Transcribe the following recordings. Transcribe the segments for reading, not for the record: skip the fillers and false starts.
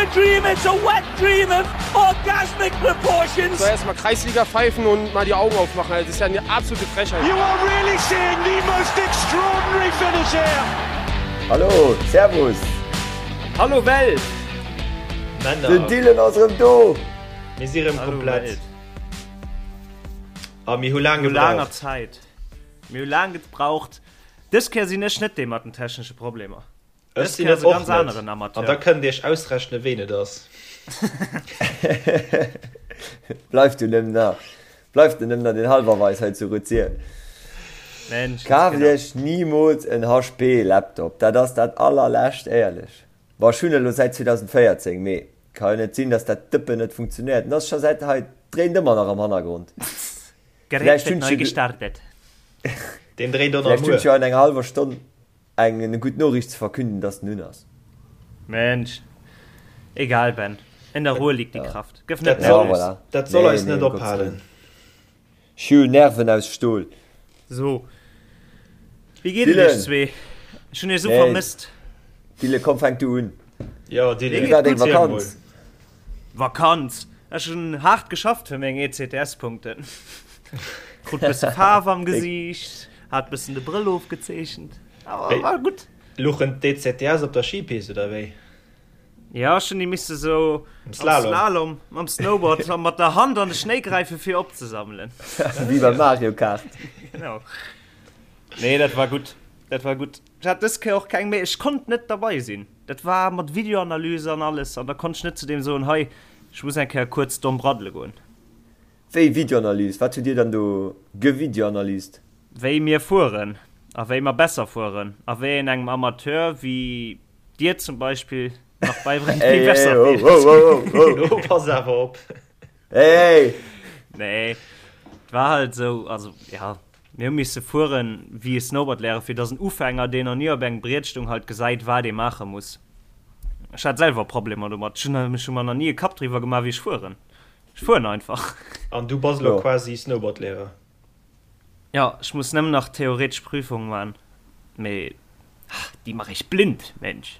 a dream, it's a wet dream of orgasmic proportions. So erstmal Kreisliga pfeifen und mal die Augen aufmachen. Das ist ja eine absolute Frechheit. You are really seeing the most extraordinary finish here. Hallo, Servus. Hallo Welt. Männer. Den Dylan ass erëm do. Mir si rëm komplett. A mir hu laang No laanger gebraucht. Zäit. Mir hu laang gebraucht. Dës Kéier sinn ech net dee mat den technesche Problemer. Ech Dës sinn Kéier et ass e och ganz net. aneren An da Amateur. kënnt Iech ausrechnen, ween et ass. Bleift du nëmmen nach, bleift du nëmmen nach den Halwerweis hei zu Ruzier. Mensch, Kaaft genau. Iech nimools en HP Laptop, dat ass dat allerlescht, éierlech. Bon, ech hunn e lo säit 2014, mee ka jo net sinn, dass dat Dëppen net funktionéiert. En ass scho säit hei, dréint ëmmer nach am Hannergrond. Gerät Vläicht wird hunn neu ech jo, gestartet. Deen dréint och nach vläicht hunn ech muer. jo an enger hallwer Stonn Eng gutt Noriicht ze verkünden, dass den un ass. Mensch. Egal Ben, in der Ruhe liegt die Kraft. Gëff net Dat soll, nervös. Ja, voilà. dat soll Nee, eis nee, net um Gottes ophalen. Willen. Ech hu Nerven aus Stol. So. Wéi geet et Dylan. iech zwee? Ech hunn iech esou Nee. vermësst. Dylan, komm, fänk du un. Jo, Dylan, Wéi war deng erziel mol. Vakanz? Vakanz? Ech hunn haart geschafft fir meng ECTS-Punkten. Krut bësse Faarf am Gesiicht, hat bëssen de Brëll ofgezeechent. Awer war gutt. Luchen d'ECTS op der Skipist oder wéi? Ja, ech hunn déi misse sou Am am Slalom. Slalom mam Snowboard a mat der Hand an de Schnéi gräife fir opzesammelen. Wéi beim Mario Kart. Genau. Nee, dat war gutt. Dat war gutt. Ech hat dës Kéier och keng méi. Ech konnt net derbei sinn. Dat war mat Videoanalyse an alles an da konnt ech net zu deem soen, hei, ech muss eng Kéier kuerz domm braddele goen. Wéi Videoanalyse? Wat hutt Dir dann do gevideoanalyst? Wéi mir fueren a wéi mer besser fueren a wéi een engem Amateur wéi Dir zum Beispill nach beibréngt, wéi Ey, besser ey, ho, fiert. ho, ho, ho, Lo pass awer op. Ey, ey! Nee, et war halt esou, also ja, Mir hu misse fueren wéi e Snowboardlehrer, fir dass en Ufänger, deen nach ni op engem Briet stung, halt gesäit, wat ee maache muss. Ech hat selwer Problemer domat. Ech hunn ech hu mer nach ni e Kapp driwwer gemaach, wéi ech fueren. Ech fueren einfach. An du bass elo Jo. quasi Snowboardlehrer? Jo, ech muss nëmmen nach theoretesch Prüfung man, mee déi mach ech blind, Mensch.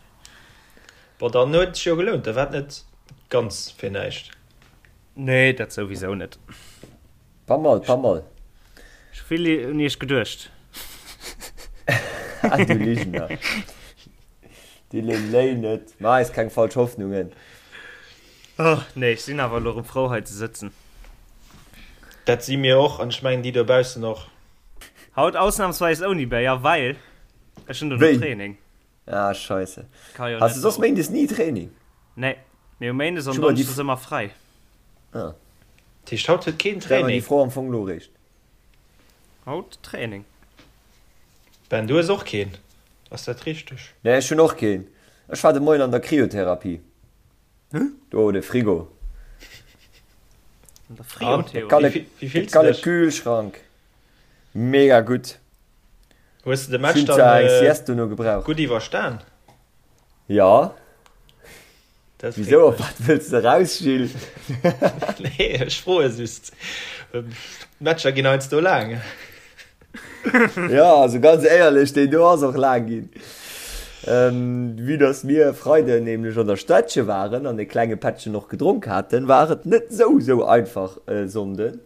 Bon, dann huet et sech jo gelount, da war et net ganz fir näischt. Nee, dat souwisou net. Pas mal, pas mal. Ech hu vill un iech geduecht. Ah, du Ligener. Dylan, léi net. Maach eis keng falsch Hoffnungen. Oh, nee, ech sinn awer elo erëm frou hei ze sëtzen. Dat si mir och, an ech mengen déi dobaussen och. Haut ausnahmsweis ouni Béier, well ech hunn dono Wéi? Training. Ah, scheisse. Ka jo Has net du soss do. méindes ni Training? Nee, mir hu méindes an Ech hu mer déi donneschdes ëmmer fräi. Ah. Dat heescht haut huet keen Stell mer déi Training? Fro am Fong lo réischt. Haut Training. Ben, du hues och keen, ass dat richteg? Nee, ech hunn och keen. Ech war de Moien an der Kryotherapie. Do, de Frigo. An der An? Friotheorie. Wéi De fills de kale dech? Kühlschrank. Mega gutt. Hues de de Ech Match hunn dann zwar eng Sieste dono gebraucht. gutt iwwerstan? Jo. Dat freet Wisou, op mech. wat wëlls de eraus, Gilles? Nee, ech froe just. D'Matcher ginn heiansdo laang. Jo, also ganz éierlech, deen do ass och laang ginn. Vue dass mir e Freiden nämlech an der Städtche waren an e klenge Pättchen och gedronk haten, war et net sou sou einfach e Sonnden.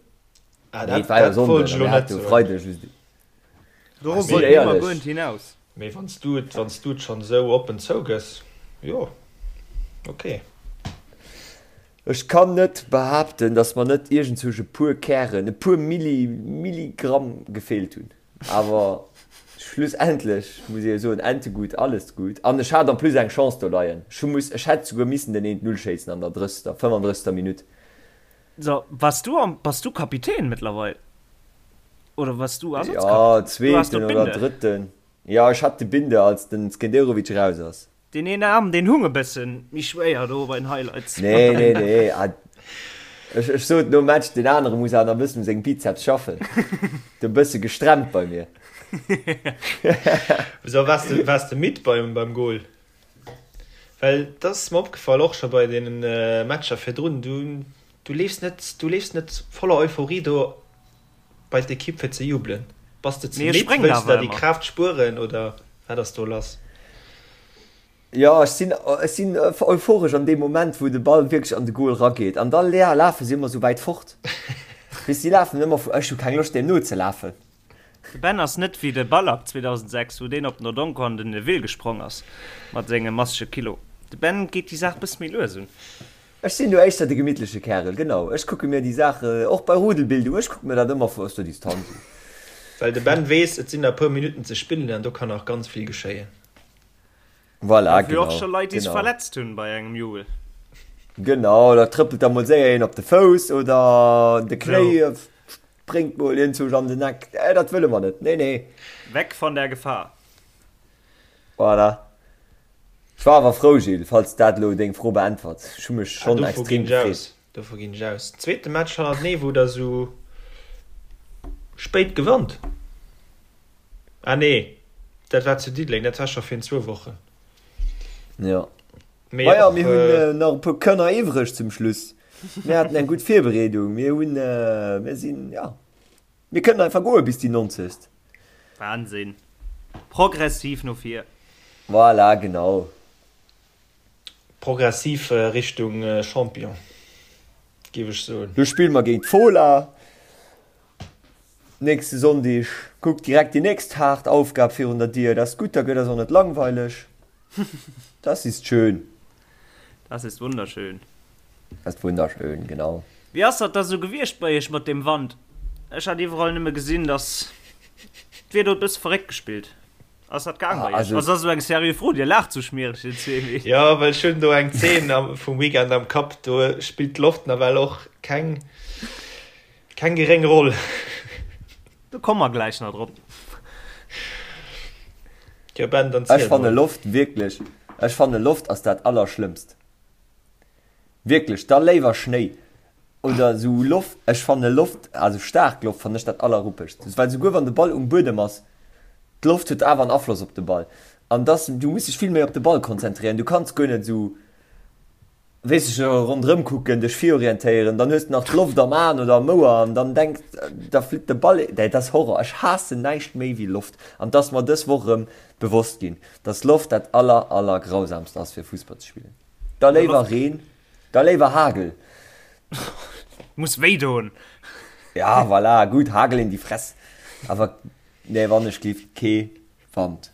Ah, Nee, dat, et war jo dat wollt Sonnden ech a elo mir net hate jo soen. Freide just. Dorop Sinn wollt mir éierlech. guer net hinaus. Mee wann s du et, wann s du et schonn esou oppen zougëss, jo, ok. Ech kann net behaapten, dass mer net iergendzwousch e puer Kären, e puer Milli, Milligramm gefeelt hunn. Awer schlussendlech muss ee jo soen, Ente gut, alles gut. An ech hat en plus eng Chance do leien. Ech hu muss, ech hätt souguer missen den eent Null schéissen an der 30., 35. Minutt. So, wars du am, bass du Kapitän mëttlerweil? Oder wars du Ja, Ersatzkapitän? Du has zweeten do oder d'Binde. drëtten. Ja, ech hat de Binde, als den Skenderovic raus ass. Deen een Aarm, deen hung e bëssen méi schwéier do bei den Highlights. Nee, nee, nee. Ah, ech, ech sot nom Match, deen anere muss awer nach e bëssen u sengem Bizeps schaffen. De bësse gestremmt bei mir. Wéisou, waars de, waars de midd beim, beim Goal? Well dat ass mer opgefall, och scho bei deenen Matcher virdrun, du, du leefs net, du leefs net voller Euphorie do bei d'Ekipp fir ze jubelen. Bass de ze Mee ech midd? spréngen Wëlls de awer der déi ëmmer. Kraaft spueren oder wat ass do lass? Jo, ech sinn, ech sinn euphoresch an deem Moment, wou de Ball wierklech an de Goal rageet. An da lafe si ëmmer sou wäit fort. Weess, si lafen ëmmer vu, ech hu keng Loscht, deem nozelafen. De Ben ass net wéi de Ballack 2006, wou deen op den Odonko an den Neville gesprong ass mat senge massege Kilo. De Ben geet déi Saach bësse méi lues un. Ech sinn do éischter de gemittleche Kärel, genau. Ech kucke mir déi Saache, och bei Rudelbildung, ech kucke mir dat ëmmer vu aus der Distanz un. Well de Ben weess, et sinn nach e puer Minutten ze spillen an do kann nach ganz vill geschéien. Voilà, Gouf jo och scho Leit, déi sech verletzt hunn bei engem Jubel. Genau, da trëppelt da mol séier een op de Fouss oder de Knéi spréngt mol iergendwou an den Eck. Dat wëlle mer net, nee, nee. Weg von der Gefahr. Voilà. Ech war awer frou, Gilles, falls dat elo deng Fro beäntwert. Ech hu mech schonn extrem gefreet. Dovu ginn ech aus. Zweete Match hannertenee, wou der esou spéit gewannt. Ah nee, dat war zu Diddeleng, dat war scho virun zwou Wochen. Jo. Mee Ma ja, mir hunn nach e puer Kënner iwwreg zum Schluss. Mir haten eng gutt Virbereedung. Mir hunn, mir sinn, ja, mir kënnen einfach goe bis déi 90. Wahnsinn. Progressiv no vir. Voilà, genau. Progressiv Richtung Champion, géif ech soen. Do spille mer géint d'Fola nächste Sonndeg. Kuck, direkt déi nächst haart Aufgab virun der Dier. Dat ass gutt, da gëtt eis och net langweileg. Das ist schön. Das ist wunderschön. Das ist wunderschön, genau. Wéi ass dat da sou gewiescht bei iech mat deem Wand? Ech hat iwwerall nëmme gesinn, dass d'Wieder huet bësse verréckt gespillt. Ass dat gaang bei iech? Also, ass dat eng seriö Fro? Dir laacht sou schmiereg, dir zwee. Jo, well ech hunn do eng Zeen vum Weekend am Kapp, do spillt d'Loft nawell och keng, keng geréng Roll. Do komme mer gläich nach drop. Jo Ben, dann ziel Ech fanne mol. Loft wierklech, ech fanne Loft ass dat allerschlëmmst. Wierklech, da léiwer Schnéi oder esou Loft. Ech fanne Loft, also staark Loft fannen ech dat allerruppegst, well souguer wann de Ball um Buedem ass, d'Loft huet awer en Afloss op de Ball an dass du muss dech vill méi op de Ball konzentréieren. Du kanns guer net esou, weess ech, ronderëm kucken, dech virorientéieren, dann hues de nach d'Loft am Aen oder am Ouer an dann denks, da flitt de Ball. Dat ass Horror. Ech haassen näischt méi wéi Loft an 't ass mer dës Woch erëm bewosst ginn, dass Loft dat aller, aller grausamst ass fir Fussball ze spillen. Da léiwer Reen, da léiwer Hagel. Muss wéi doen. Ja, voilà, gutt, Hagel in die Fress. Awer nee, wann ech giff, kee Wand.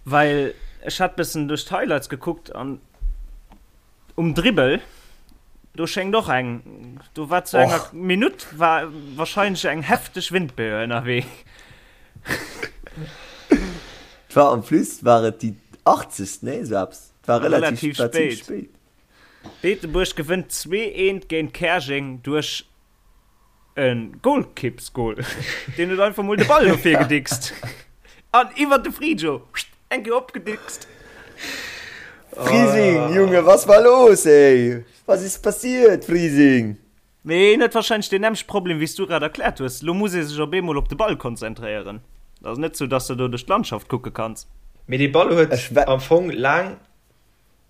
Well ech hat bessen duerch d'Highlights gekuckt an um Dribbel do schéngt och eng, do war zu enger Minutt war wahrscheinlech eng hefteg Windböe ënnerwee. Et war en plus war et déi 80. Nee, esou eppes. Et war relativ, relativ spéit. spéit. Beetebuerg gewënnt 2, 1 géint Käerjeng duerch e Golkippsgol. Deen huet einfach mol de Ball no vir gedickst. An iwwer de Frijo eng Kéier opgedickst. Frising, Junge, was war los, ey? Was ist passiert, Frising? Mee en huet wahrscheinlech deen nämmlechte Problem wéi s du grad erkläert hues. Lo muss ee sech op eemol op de Ball konzentréieren. Et ass net sou, dass de do duerch d'Landschaft kucke kanns. Mee dee Ball huet am Fong laang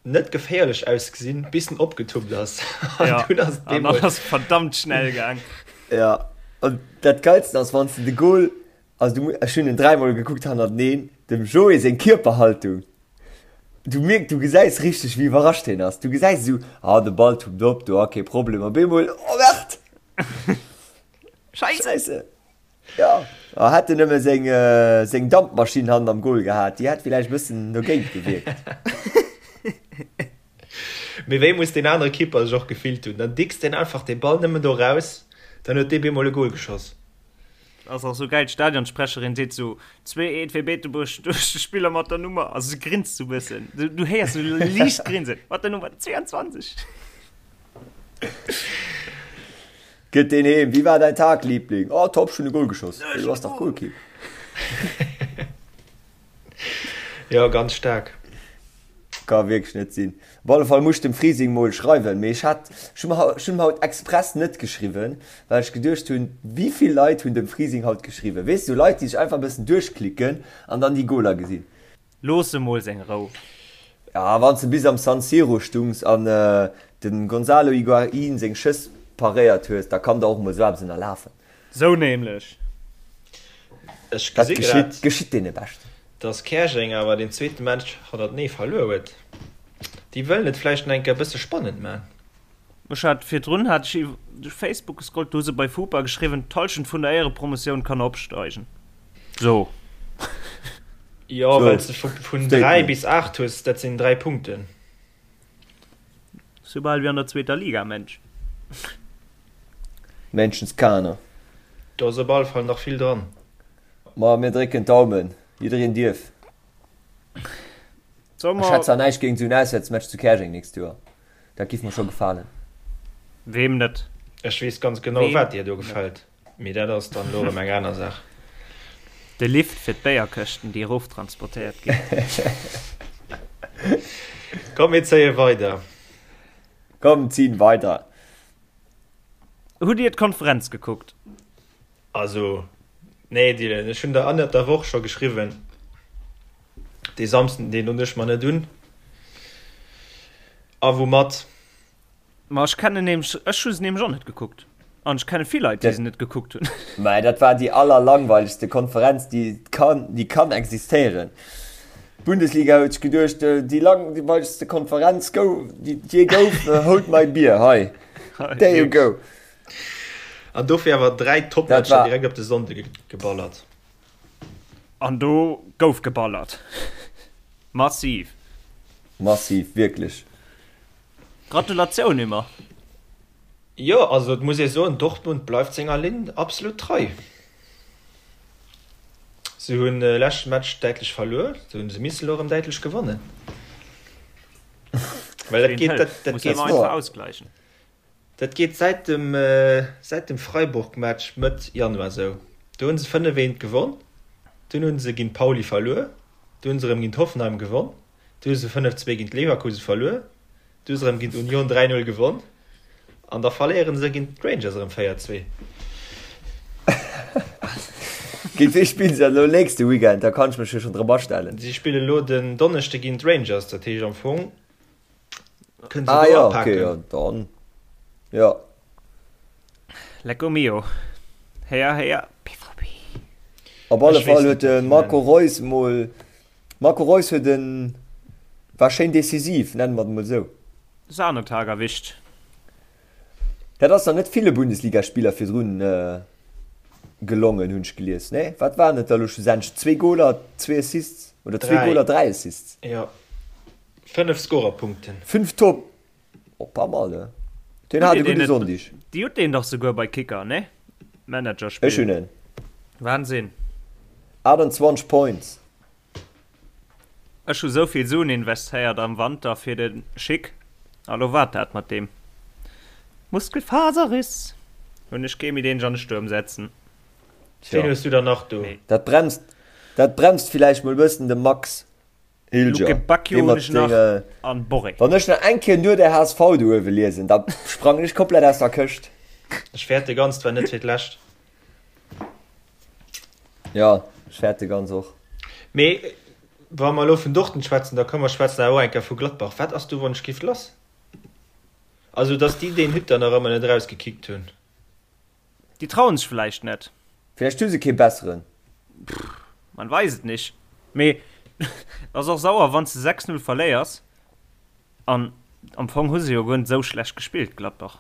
net geféierlech ausgesinn, bis en opgetuppt ass. An ja, dunn ass et an dann ass verdammt schnell gaang. Ja, an dat Geilsten ass, wann s de de Goal, also du, ech hunn en dräimol gekuckt hannerteneen, dem Joé seng Kierperhaltung. Du mierk, du gesäis richteg wéi iwwerrascht hien ass. Du gesäis esou, ah de Ball tuppt op, do ah kee Problem, op eemol, oh merde! Scheisse! Scheisse! Ja, ah hätt en nëmme seng seng Dampmaschinn hannen am Goal gehat, déi hätt villäicht e bëssen dogéint gewierkt. Mee wéi muss deen anere Keeper sech och gefillt hunn? Dann dickst deen einfach dee Ball nëmmen do raus, dann huet dee bemol e Goal geschoss. Ass och sou geil, d'Stadionsprecherin seet sou, 2, 1 fir Beetebuerg duerch de Spiller mat der Nummer, also se grinst sou bëssen, du, du héiers sou liicht grinsen, mat der Nummer 22. Gëtt deen heem, Wie war dein Tag, Liebling? Oh top, ech hunn e Goal geschoss. Du bass dach Goalkeep. Jo, ganz staark. Ka wierklech net sinn. Op alle Fall muss ech dem Frising mol schreiwen, mee ech hat, ech hunn ech hunn haut express net geschriwwen, well ech geduecht hunn, wéi vill Leit hunn dem Frising haut geschriwwen? Weess du, Leit déi sech einfach e bëssen duerchklicken an dann déi Goaler gesinn. Looss em mol seng Rou. Ja, wann s de bis am San Siro stungs an de Gonzalo Higuaín seng Schëss paréiert hues, da kann der och mol sou eppes ënnerlafen. Sou nämlech. Ech Dat gesi geschitt, grad, geschitt deene Beschten. Dass Käerjeng awer deen zweete Match hannertenee verluer huet. Déi wëllen et vläicht nach eng Kéier e bësse spannend man. Ech hat virdrun hat ech iwwer duerch Facebook gescrollt, do hu se bei FuPa geschriwwen, d'Hallschent vun der Éierepromotioun kann opsteigen. So. Jo, well s de vun 3 bis 8 hues, dat sinn 3 Punkten. Soubal wéi an der zweeter Liga, Mensch. Menschenskaner. Do ass op alle Fall nach vill dran. Ma mir drécken d'Daumen, jiddereen dierf. Ech hätt zwar näischt géint esou en Auswäertsmatch zu Käerjeng nächst Joer, dat giff mer scho gefalen. Weem net? Ech weess ganz genau wat dir do gefält, mee dat ass dann elo erëm eng aner Saach. De Lift fir d'Béierkëschten déi erof transportéiert ginn. Komm mir zéie weider. Komm zin weider. Hutt dir d'Konferenz gekuckt? Also, nee Dylan, ech hunn der ënnert der Woch scho geschriwwen, dee Samsden, deen hunn ech mer net un. A woumat? Ma ech kennen nämlech, ech hu se nämlech och net gekuckt. An ech kenne vill Leit, déi se net gekuckt hunn. Mä dat war déi allerlangweilegste Konferenz, déi kann, déi kann existéieren. D'Bundesliga huet sech geduecht, déi langweilegste Konferenz gouf, déi et jee gouf, hold my beer, hei, there you go. An dofir awer 3 Topmatcher direkt op de Sonnde geballert. An do gouf geballert. Massiv. Massiv, wierklech. Gratulatioun Immer. Jo, also et muss ee soen, Dortmund bleift senger Linn absolut trei. Se hunn de leschte Match däitlech verluer, se hunn se missen elo erëm däitlech gewannen. Well dat geet, dat, dat geet ausgleichen. Dat geet säit dem säit dem Freiburg-Match Mëtt Januar sou. Do hunn se 5, 1 gewonn, dunn hunn se géint Pauli verluer, du hunn se erëm géint Hoffenheim gewonn, du hu se 5, 2 géint Leverkusen verluer, du hu se erëm géint Union 3, 0 gewonn an da verléieren se géint d'Rangers erëm 4, 2. Géint wee spillen se dann elo nächste Weekend? Da kann ech mech jo schonn drop astellen. Si spille elo den Donneschde géint d'Rangers, dat heescht am Fong Kënnen se ah, do ja, okay, ja, dann. Ja. Lecco mio. Héier, héier, BVB. Op alle Fall huet de Marco Reus mol Marco Reus huet en war schéin decisiv, nennen mer et mol sou. Sahnetag erwischt. Dat ass nach net ville Bundesligaspiller virdrun gelongen, hunn ech gelies, nee? Wat waren et da lo schlussendlech? Zwee Goler, zwee Assists oder zwee Goler, dräi Assists? Jo. 5 Scorerpunkten. 5 Top! Oh, pas mal, ne? Deen hat e gudde Sonndeg. Dir hutt deen dach souguer bei Kicker, ne? Managerspill. Ech hunn en. Wahnsinn. 28 Points. Ech hu sou vill Suen investéiert am Wanter fir de Schick, a lo waart dat mat deem Muskelfaserriss. Hunn ech kee méi deen ech an de Stuerm setzen. Ween hues du dann nach do? Dat bremst, dat bremst villäicht mol e bëssen de Max. Hilger, Luke Bacchio dee hunn mat ech nach senge. an Borré. Wann ech nach eng Kéier nur der HSV do uewe liesen, da sprangen ech komplett aus der Këscht. Ech fäerte ganz, 't war net fir d'lescht. Jo, ech fäerte ganz och. Mee wa mer elo vun Dortmund schwätzen, da komm mer schwätzen awer och eng Kéier vu Gladbach. Wat ass do wonschgift lass? Also, datt déi deen Hütter nach ëmmer net erausgekickt hunn. Déi trauen sech vläicht net. Vläicht hu se kee besseren. Man weiß et nicht. Mee et ass och sauer wanns de 6, 0 verléiers an am Fong hu se jo guer net esou schlecht gespillt Gladbach.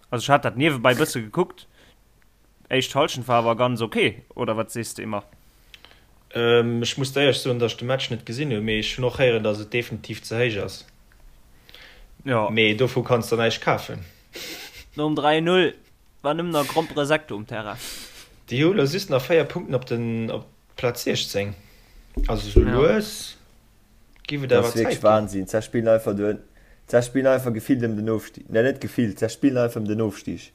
Also ech hat dat niewebäi bësse gekuckt, éischt Halschent war awer ganz ok, oder wat sees de Immer? Ech muss der éierlech soen, datt ech de Match net gesinn hunn, mee ech hunn och héieren, datt et definitiv ze héich ass. Jo. Mee dovu kanns der näischt kafen. Nom 3, 0 war nëmmen nach Gromperesekto um Terrain. Déi hu lo just nach 4 Punkten op den op d'Plaz 16. Also sou lues giff et Dat awer ass wierklech Zäit ginn. Wahnsinn. Zech spillen einfach do, zech spillen einfach gefillt ëm den Ofstig. Ne, net gefillt, zech spillen einfach ëm den Ofstig.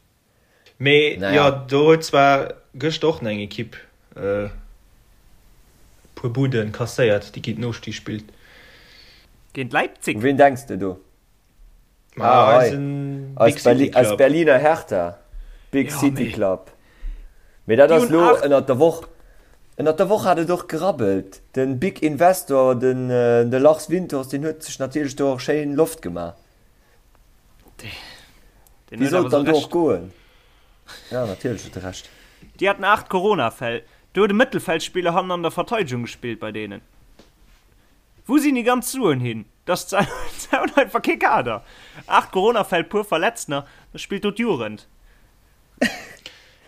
Mee jo, Naja. do huet zwar gëschter och nach eng Ekipp e puer Buden kasséiert, déi géint den Ofstig spillt. Géint Leipzig. U ween denks de do? Ma Ah, hei. eisen Big Eis, City Berli eis Club. Berliner Hertha. Big Ja, City mee Club. Mee dat déi ass hunn lo 8. ënnert der Woch. Ënnert der Woch hat et och gerabbelt. Den Big Investor, den, de Lars Windhorst, deen huet sech natierlech do och schéin Loft gemaach. Deen Wéi huet soll awer et sou dann do och Recht. goen? Ja, natierlech huet e Recht. Déi haten 8 Corona-Fäll. Do huet e Mëttelfeldspiller hannen an der Verteidegung gespillt bei deenen. Wou sinn déi ganz Suen hin? Dass d'Saun einfach kee Kader. 8 Corona-Fäll, puer Verletztener, da spillt do d'Jugend.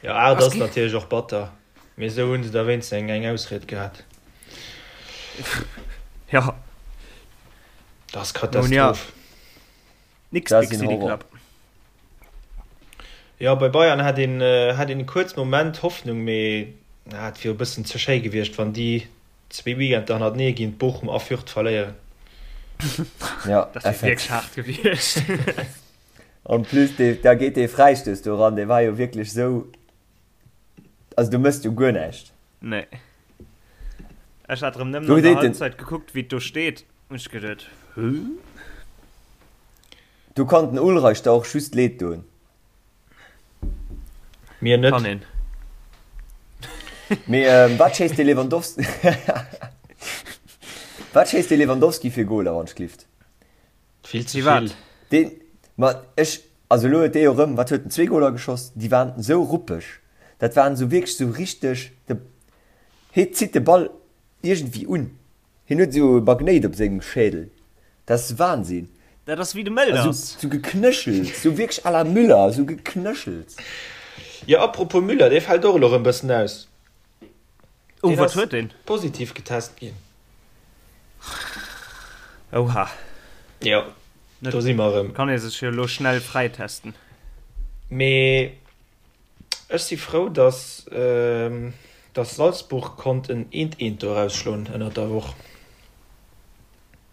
Jo, 8 ass natierlech och batter, mee esou hu se da wéinstens eng eng Ausried gehat. Jo. Dat ass Katastroph. Nix Big City Club. Jo, bei Bayern hat een hat een e kuerz Moment Hoffnung, mee et wier e bëssen ze schéi gewiescht, wann déi zwee Weekender hannertenee géint Bochum a Fürth verléieren. Ja, dat wier wierklech haart gewiescht. En plus, da geet dee Fräistouss do eran, dee war jo wierklech esou, also du mëss jo guer näischt. Nee. Ech hat erëm nëmmen an der Halbzeit gekuckt, wéi et do steet, hunn ech geduet, Hä? Do kann den Ulreich der och just leed doen. Mir net. Kann een. Mee wat schéisst de Lewandowski Wat schéisst de Lewandowski fir Goler wann ech glift? Vill ze vill. Deen, ma ech, also elo huet dee jo erëm, wat huet en, zwee Goler geschoss, déi waren esou ruppeg, dat waren esou wierklech esou richteg, de hie zitt de Ball iergendwéi un, hien huet esou e Magnéit op sengem Schädel, dat ass Wahnsinn. Dat ass wéi de Mölders. Esou geknëchelt, esou wierklech à la Müller, esou geknëchelt. Jo, apropos Müller, dee fält och elo erëm bëssen aus. Oh, wat huet deen? Positiv getest ginn. Oha. Jo, do si mer erëm. Kann ee sech jo elo schnell fräitesten. Mee ech si frou, dass dass Salzburg konnt en Eent-Eent do erausschloen ënnert der Woch.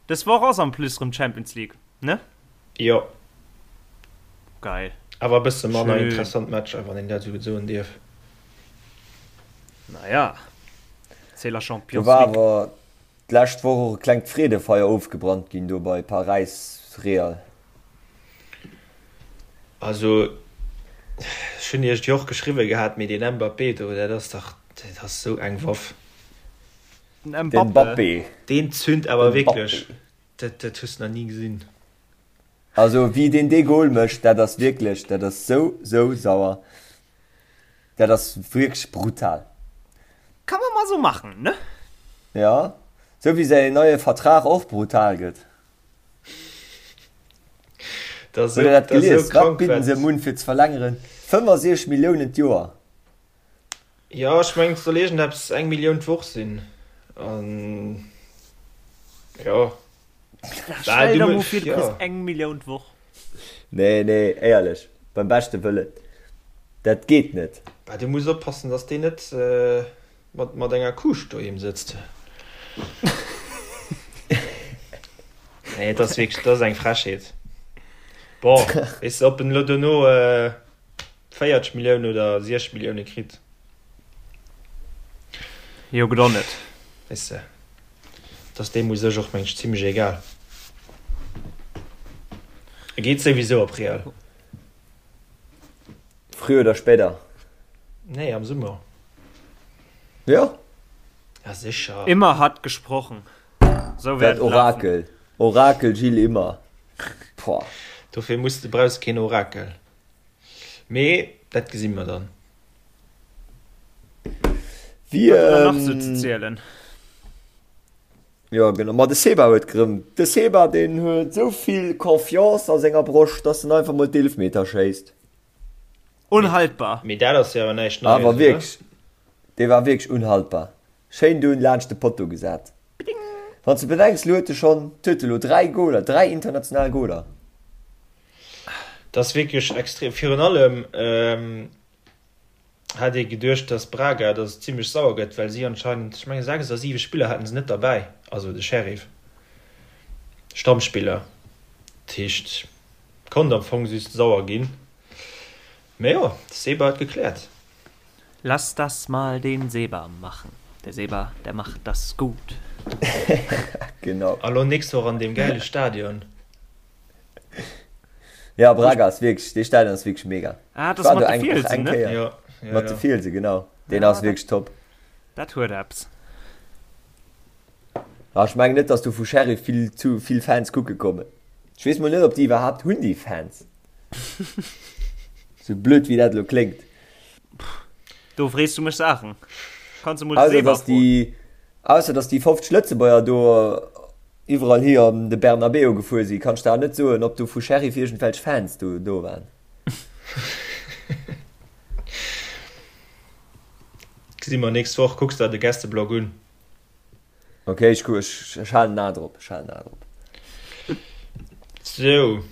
Dës Woch ass en plus rëm Champions League, ne? Jo. Geil. Awer e bësse manner interessant Matcher, wann een dat esou soen dierf. Naja, c'est la Champions Do war League. awer d'lescht Woch och e klengt Freedefeier ofgebrannt ginn do bei Paräis-Real. Also, ech hunn iech et jo och geschriwwe gehat, mee deen Mbappé do, dat ass dach, dat ass esou eng Waff. Den Den Mbappé. Mbappé. Deen zünd awer Den wierklech, Mbappé. dat, dat hues de nach ni gesinn. Also wéi deen dee Goal mécht, dat ass wierklech, dat ass sou, sou sauer. Dat ass wierklech brutal. Kann man mal so machen, ne? Ja, sou wéi säin neie Vertrag och brutal gëtt. Dat ass Hutt der dat esou, dat ass esou gelies? Wat krank, bidden se wat. em un fir ze verlängeren? 65 Milliounen d'Joer. Jo, ech mengen et soll iergendeppes eng Millioun d'Woch sinn. An jo. Stell der mol vir, du kriss eng Millioun d'Woch. Nee, nee, éierlech, beim beschte Wëllen, dat geet net. Bah, du muss oppassen, dass deen net mat, mat enger Kuuscht doheem sëtzt. Nee, et ass wierklech, dat ass eng Frechheet. Bon, weess de, ob en elo dono 40 Milliounen oder 60 Millioune kritt. Jo, gëtt och net. Weess de, et ass deem u sech och, meng ech, zimlech egal. E geet souwisou op Real. Früher oder später. Nee, am Summer. Jo. Ja, sécher. Immer hat gesprochen. Sou wäert Dat et lafen. Orakel. Orakel Gilles Immer. Pouah. Dofir muss de, brauchs keen Orakel. Mee dat gesi mer dann. Wie, Wat huet nach sou ze ähm, zielen? Jo genau, ma de Seba huet gerëm, de Seba deen huet esou vill Confiance a senger Broscht, dass en einfach mol d'Eelfmeter schéisst. Unhaltbar! Mee dat ass jo awer näischt Neies, Awer oder? wierklech, dee war wierklech unhaltbar. Schéin dunn laanscht de Potto gesat. Wann s de bedenks, lo huet e schonn, huet e lo 3 Goler, 3 international Goler. Dat ass wierklech extrem. Virun allem hat ee geduecht, datt Braga, datt et zimlech sauer gëtt, well si anscheinend, ech menge 6 oder 7 Spiller haten se net derbäi, also de Sheriff, Stammspiller. Dat heescht, konnt am Fong just sauer ginn. Mä jo, de Seba huet gekläert. Lass das mal den Seba machen, der Seba, der macht das gut. Genau. A lo nächst Woch an deem gäile Stadion. Ja, Braga ass wierklech, dee Stadion ass wierklech mega. Ah, Ich das war mat do de eng, och Fielsen, eng ne? Kéier. Jo, jo, Mat de jo. Fielse, genau. Deen Ja, ass dat, wierklech top. dat huet eppes. Ah, ech mengen net, dass do vu Sheriff vill zu vill Fans kucke kommen. Ech weess mol net, ob déi iwwerhaapt hunn, déi Fans. Sou blöd wéi dat elo kléngt. Do frees du mech Saachen. Kanns du mol de Ausser Seba dass froen. déi, ausser dass déi 50 Lëtzebuerger do. iwwerall hi an de Bernabeu gefuer sinn, kann ech der net soen, ob do vu Sheriff iergendwelch Fans do do waren. Gesi mer nächst Woch. Kucks der de Gästeblog un. Ok, ech ku ech ech halen en A drop, ech halen en A drop. Sou,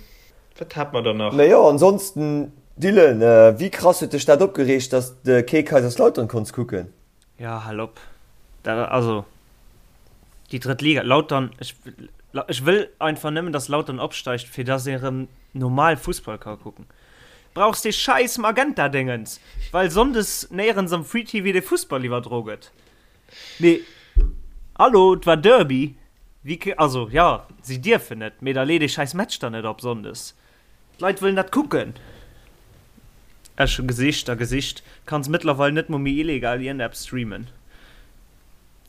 wat hat mer dann nach? Mee jo, ansonsten, Dylan, wéi krass huet dech dat opgereegt, dass de kee Kaiserslautern konns kucken? Jo, hal op. Dat, also, déi drëtt Liga, Lautern, ech, ech wëll einfach nëmmen, dass Lautern opsteigt, fir dass ee rëm normal Fussball ka kucken. Brauchs dee schäiss Magenta-Déngens, well sonndes néierens am Free TV de Fussball iwwerdro gëtt. Mee hallo, et war Derby, wéi ke, also jo, si dierfen net, mee da lee dee schäiss Match dann net op Sonndes. D'Leit wëllen dat kucken. Ech hu gesicht a gesicht, kanns mëttlerweil net mol méi illegal iergendeppes streamen.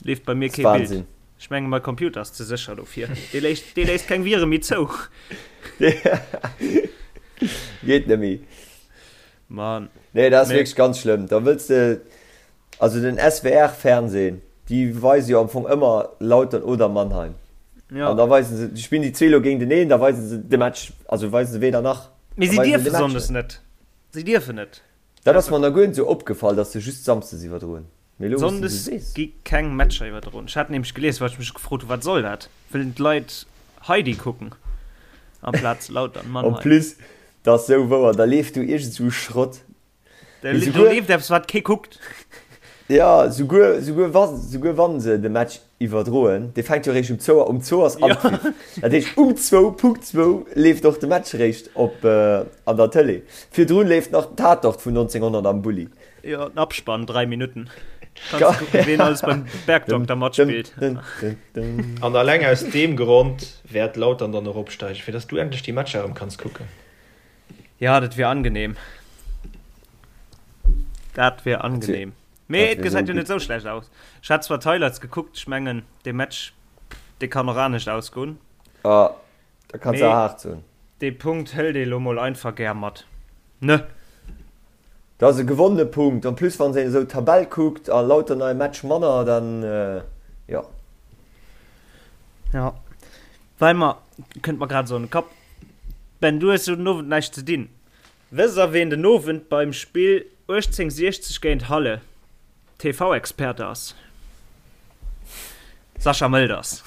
Leeft bei mir kee Bild. Ech menge mei Computer ass ze sécher dofir, dee léisst, dee léisst keng Vire méi zou. Geet net méi. Mann. Nee, dat ass wierklech ganz schlëmm. Da wëlls de. Also den SWR Fernsehen, déi weise jo am Fong ëmmer Lautern oder Mannheim. Ja. An da weisen se, déi spillen déi zwee lo géinteneen, da weisen se de Match, also weisen se weder nach. Mee si dierfe Sonndes net. Si dierfen net. Dat ass mer nach guer net esou opgefall, datt se just Samsdes iwwerdroen. Mee elo wou s de esou Sonndes sees. gi keng Matcher iwwerdroen. Ech hat nämlech gelies, well ech mech gefrot hu wat soll dat? Wëllen d'Leit Heidi kucken amplaz Lautern En Mannheim? plus, dat ass esou wouer, da leeft do iergend esou Schrott. Do leeft eppes wat kee kuckt. Ja, souguer, souguer wa, souguer wann se de Match iwwerdroen, dee fänkt jo eréischt um zwou, um zwou ass Anpfiff. Dat heescht um zwou, Punkt zwou leeft och de Match eréischt op an der Tëlee. Virdrun leeft nach den Tatort vun 1900 am Bulli. Jo, den Abspann, 3 Minutten. Kanns du kucken, ween alles beim Bergdokter matspillt. An alleng aus deem Grond wäert Lautern dann och opsteigen, fir dass du endlech déi Matcher erëm kanns kucken. Ja, dat wier angenehm. Dat wier angenehm. Mee et gesäit jo net sou schlecht aus. Ech hat zwar d'Highlights gekuckt, ech mengen dee Match, dee kann och anescht ausgoen. Ah, da kanns de haart soen. Dee Punkt hëlt ee lo mol einfach gär mat, ne? Dat ass e gewonnene Punkt. En plus wann een esou d'Tabell kuckt a lauter nei Match manner, dann jo. Jo, well mer, kënnt mer grad esou an de Kapp, Ben, du hues jo den Owend näischt ze dinn. Wësst der ween den Owend beim Spill 1860 géint Halle TV-Experte ass? Sascha Mölders.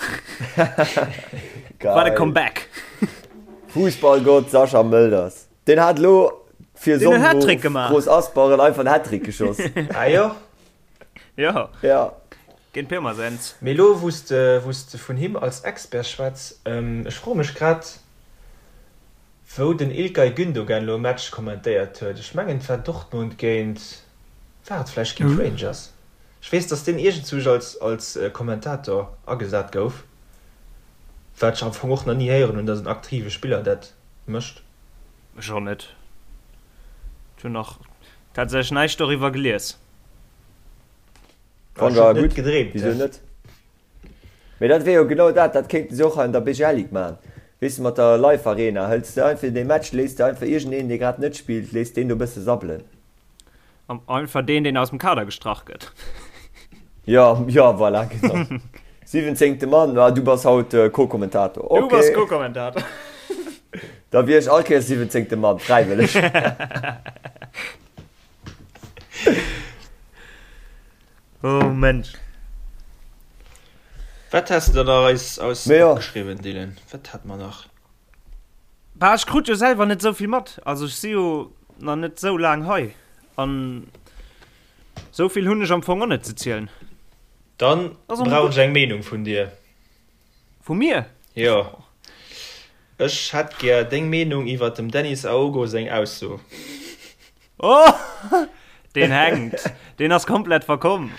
Wat e Comeback! Fussballgott Sascha Mölders. Deen hat elo fir Deen huet Hattrick gemaach. Großaspach einfach en Hattrick geschoss. Ah jo? Jo. Ja. Géint Pirmasens. Mee elo wou s de wou s de vun him als Expert schwätz, ech froe mech grad wou den Ilkay Gündogan elo e Match kommentéiert huet. Ech mengen et war Dortmund géint, war et vläicht géint Rangers? Ech weess dass deen iergendzwousch als als Kommentator agesat gouf, wat ech am Fong och nach ni héieren hunn, dass en aktive Spiller dat mécht. Ech och net. Ech hunn nach tatsächlech näischt doriwwer gelies. Wann war gutt, wisou net? Mee dat wier jo genau dat, dat kéinten se och hei an der BGL Ligue maachen. Weess de, mat der Live Arena hëls de einfach dee Match, léiss de einfach iergendeen, dee grad net spillt, léiss deen do e bësse sabbelen. Einfach deen, deen aus dem Kader gestrach gëtt. Jo, jo, voilà, genau. Siwwenzéngte Mann, ah, du bass haut Co-Kommentator. Du bass Co-Kommentator. Da wier ech all Kéiers siwwenzéngte Mann, fräiwëlleg. Oh Mensch. Wat has de da nach eis eis opgeschriwwen, Dylan? Wat hat mer nach? Bah, ech krut jo selwer net esou vill mat. Also ech si jo nach net esou laang hei an esou vill hunn ech am Fong och net ze zielen. Dann brauch ech eng Meenung vun dir. Vu mir? Jo. Ech hätt gär deng Meenung iwwert dem Dennis Aogo seng Ausso. Oh! Deen hänkt. Deen ass komplett verkomm.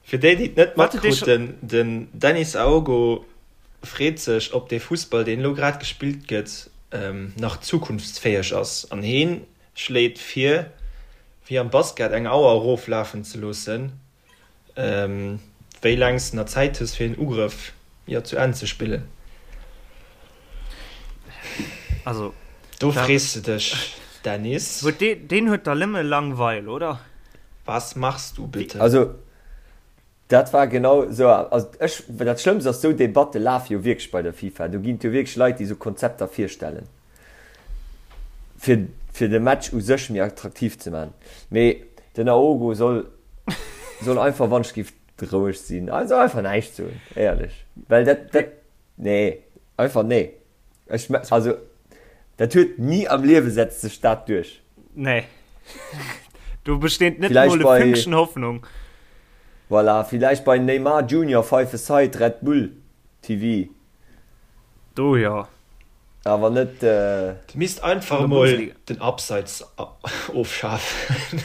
Fir déi, déi et net matkruten, den Dennis Aogo freet sech, ob dee Fussball, deen elo grad gespillt gëtt, nach zukunftsfäeg ass. An heen schléit vir, wéi am Basket eng Auer eroflafen ze loossen, wéi laang s de nach Zäit hues, fir een Ugrëff, jo, zu Enn ze spillen. Also, Do frees de dech, Dennis. Huet dee, deen huet der nëmme Langweil, oder? Was machst du bitte? Also, Dat war genau esou. Also ech, dat Schlëmmst ass, esou Debatte lafe jo wierklech bei der FIFA. Do ginn et jo wierklech Leit, déi esou Konzepter virstellen, fir, fir de Match u sech méi attraktiv ze maachen. Mee den Aogo soll, soll einfach, wann ech géif, roueg sinn. Also einfach näischt soen, éierlech. Well dat, dat, nee, einfach nee. Ech, also, dat huet ni am Liewe setzt sech dat duerch. Nee. Do besteet net mol e Fünkchen Hoffnung. Voilà, villäicht bei Neymar Junior Five a Side Red Bull TV. Do jo. Awer net. Dir misst einfach emol den Abseits ofschafen.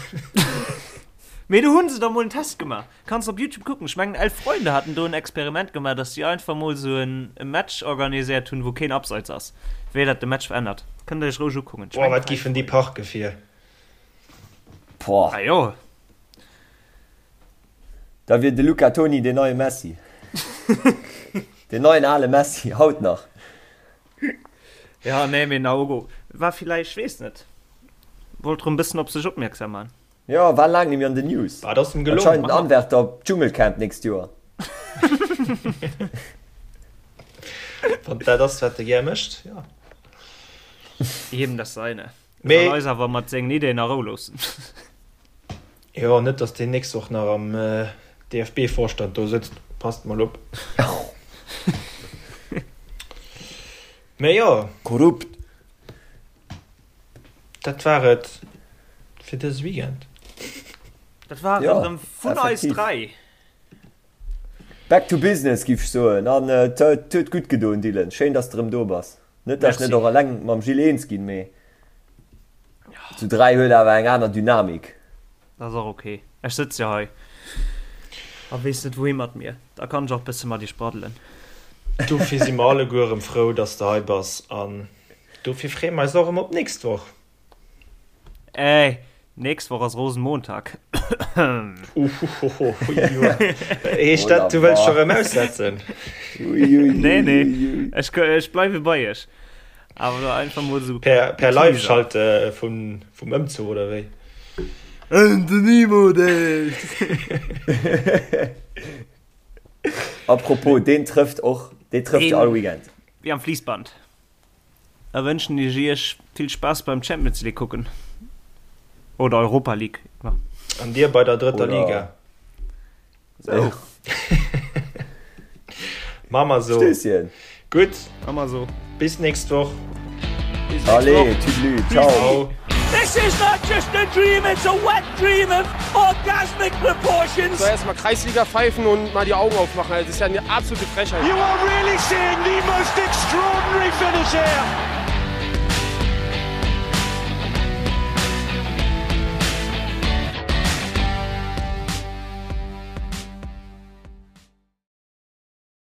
Mee do hunn se der mol en Test gemaach. Kanns op Youtube kucken. Ech mengen 11 Freunde haten do en Experiment gemaach, dass si einfach mol sou en Match organiséiert hunn, wou keen Abseits ass. Wéi dat de Match verännert. Kënnt der iech roueg ukucken. Boah, wat giffen déi parke fir. Boah. Ah jo. Da wier de Luca Toni deen neie Messi. Deen neien ale Messi, haut nach. Ja, nee, mee Naogo war villäicht, weess net, wollt rëm bëssen op sech opmierksam man. Jo, war laang nemmi an den News. Wat ass em gelongen? Anscheinend en Anwärter op d'Dschungelcamp nächst Joer. Wann dat ass wat de gär mécht, jo. Jedem das seine. Mee. Soll eis awer mat sengen Ideen a Rou loossen. Jo, net dass deen nächst Woch nach am DFB-Vorstand do sëtzt, passt mol op. Mee jo. Korrupt. Dat war et fir dëse Weekend. Dat war et erëm vun eis 3. Back to business giff ech soen. An et huet gutt gedoen Dylan, schéin dass de erëm do bass. Net dass ech net och eleng mam Gilles eens ginn, mee zu 3 huet awer eng aner Dynamik. Dat ass och ok. Ech sëtz jo hei a weess net wouhi mat mir. Da kann ech och bësse mat iech braddelen. Dofir si mer alleguer erëm frou, dass de hei bass an dofir freeë mer eis och erëm op d'nächst Woch. Ey, nächst Woch ass Rosenmontag. Uhuhuhu, heescht dat, du wëlls scho rëm aussetzen? Nee, nee, ech, ech bleiwe bei iech. Awer da einfach mol sou. Per, per Live-Schalte vum, vum Ëmzuch oder wéi? And the Nemo Days! Apropos, deen trëfft och, dee trëfft jo all Weekend. Wéi am Fliissband. Da wënschen ech iech vill Spaass beim Champions League kucken. Oder Europa League. An dir bei der drëtter Liga. Sou. Maa mer sou. Stösschen. Gutt. Maa mer sou. Bis nächst Woch. Allez, tüdelü, ciao. This is not just a dream, it's a wet dream of orgasmic proportions. So erstmal Kreisliga pfeifen und mal die Augen aufmachen. Also das ist ja eine absolute Frechheit. You are really seeing the most extraordinary finish here.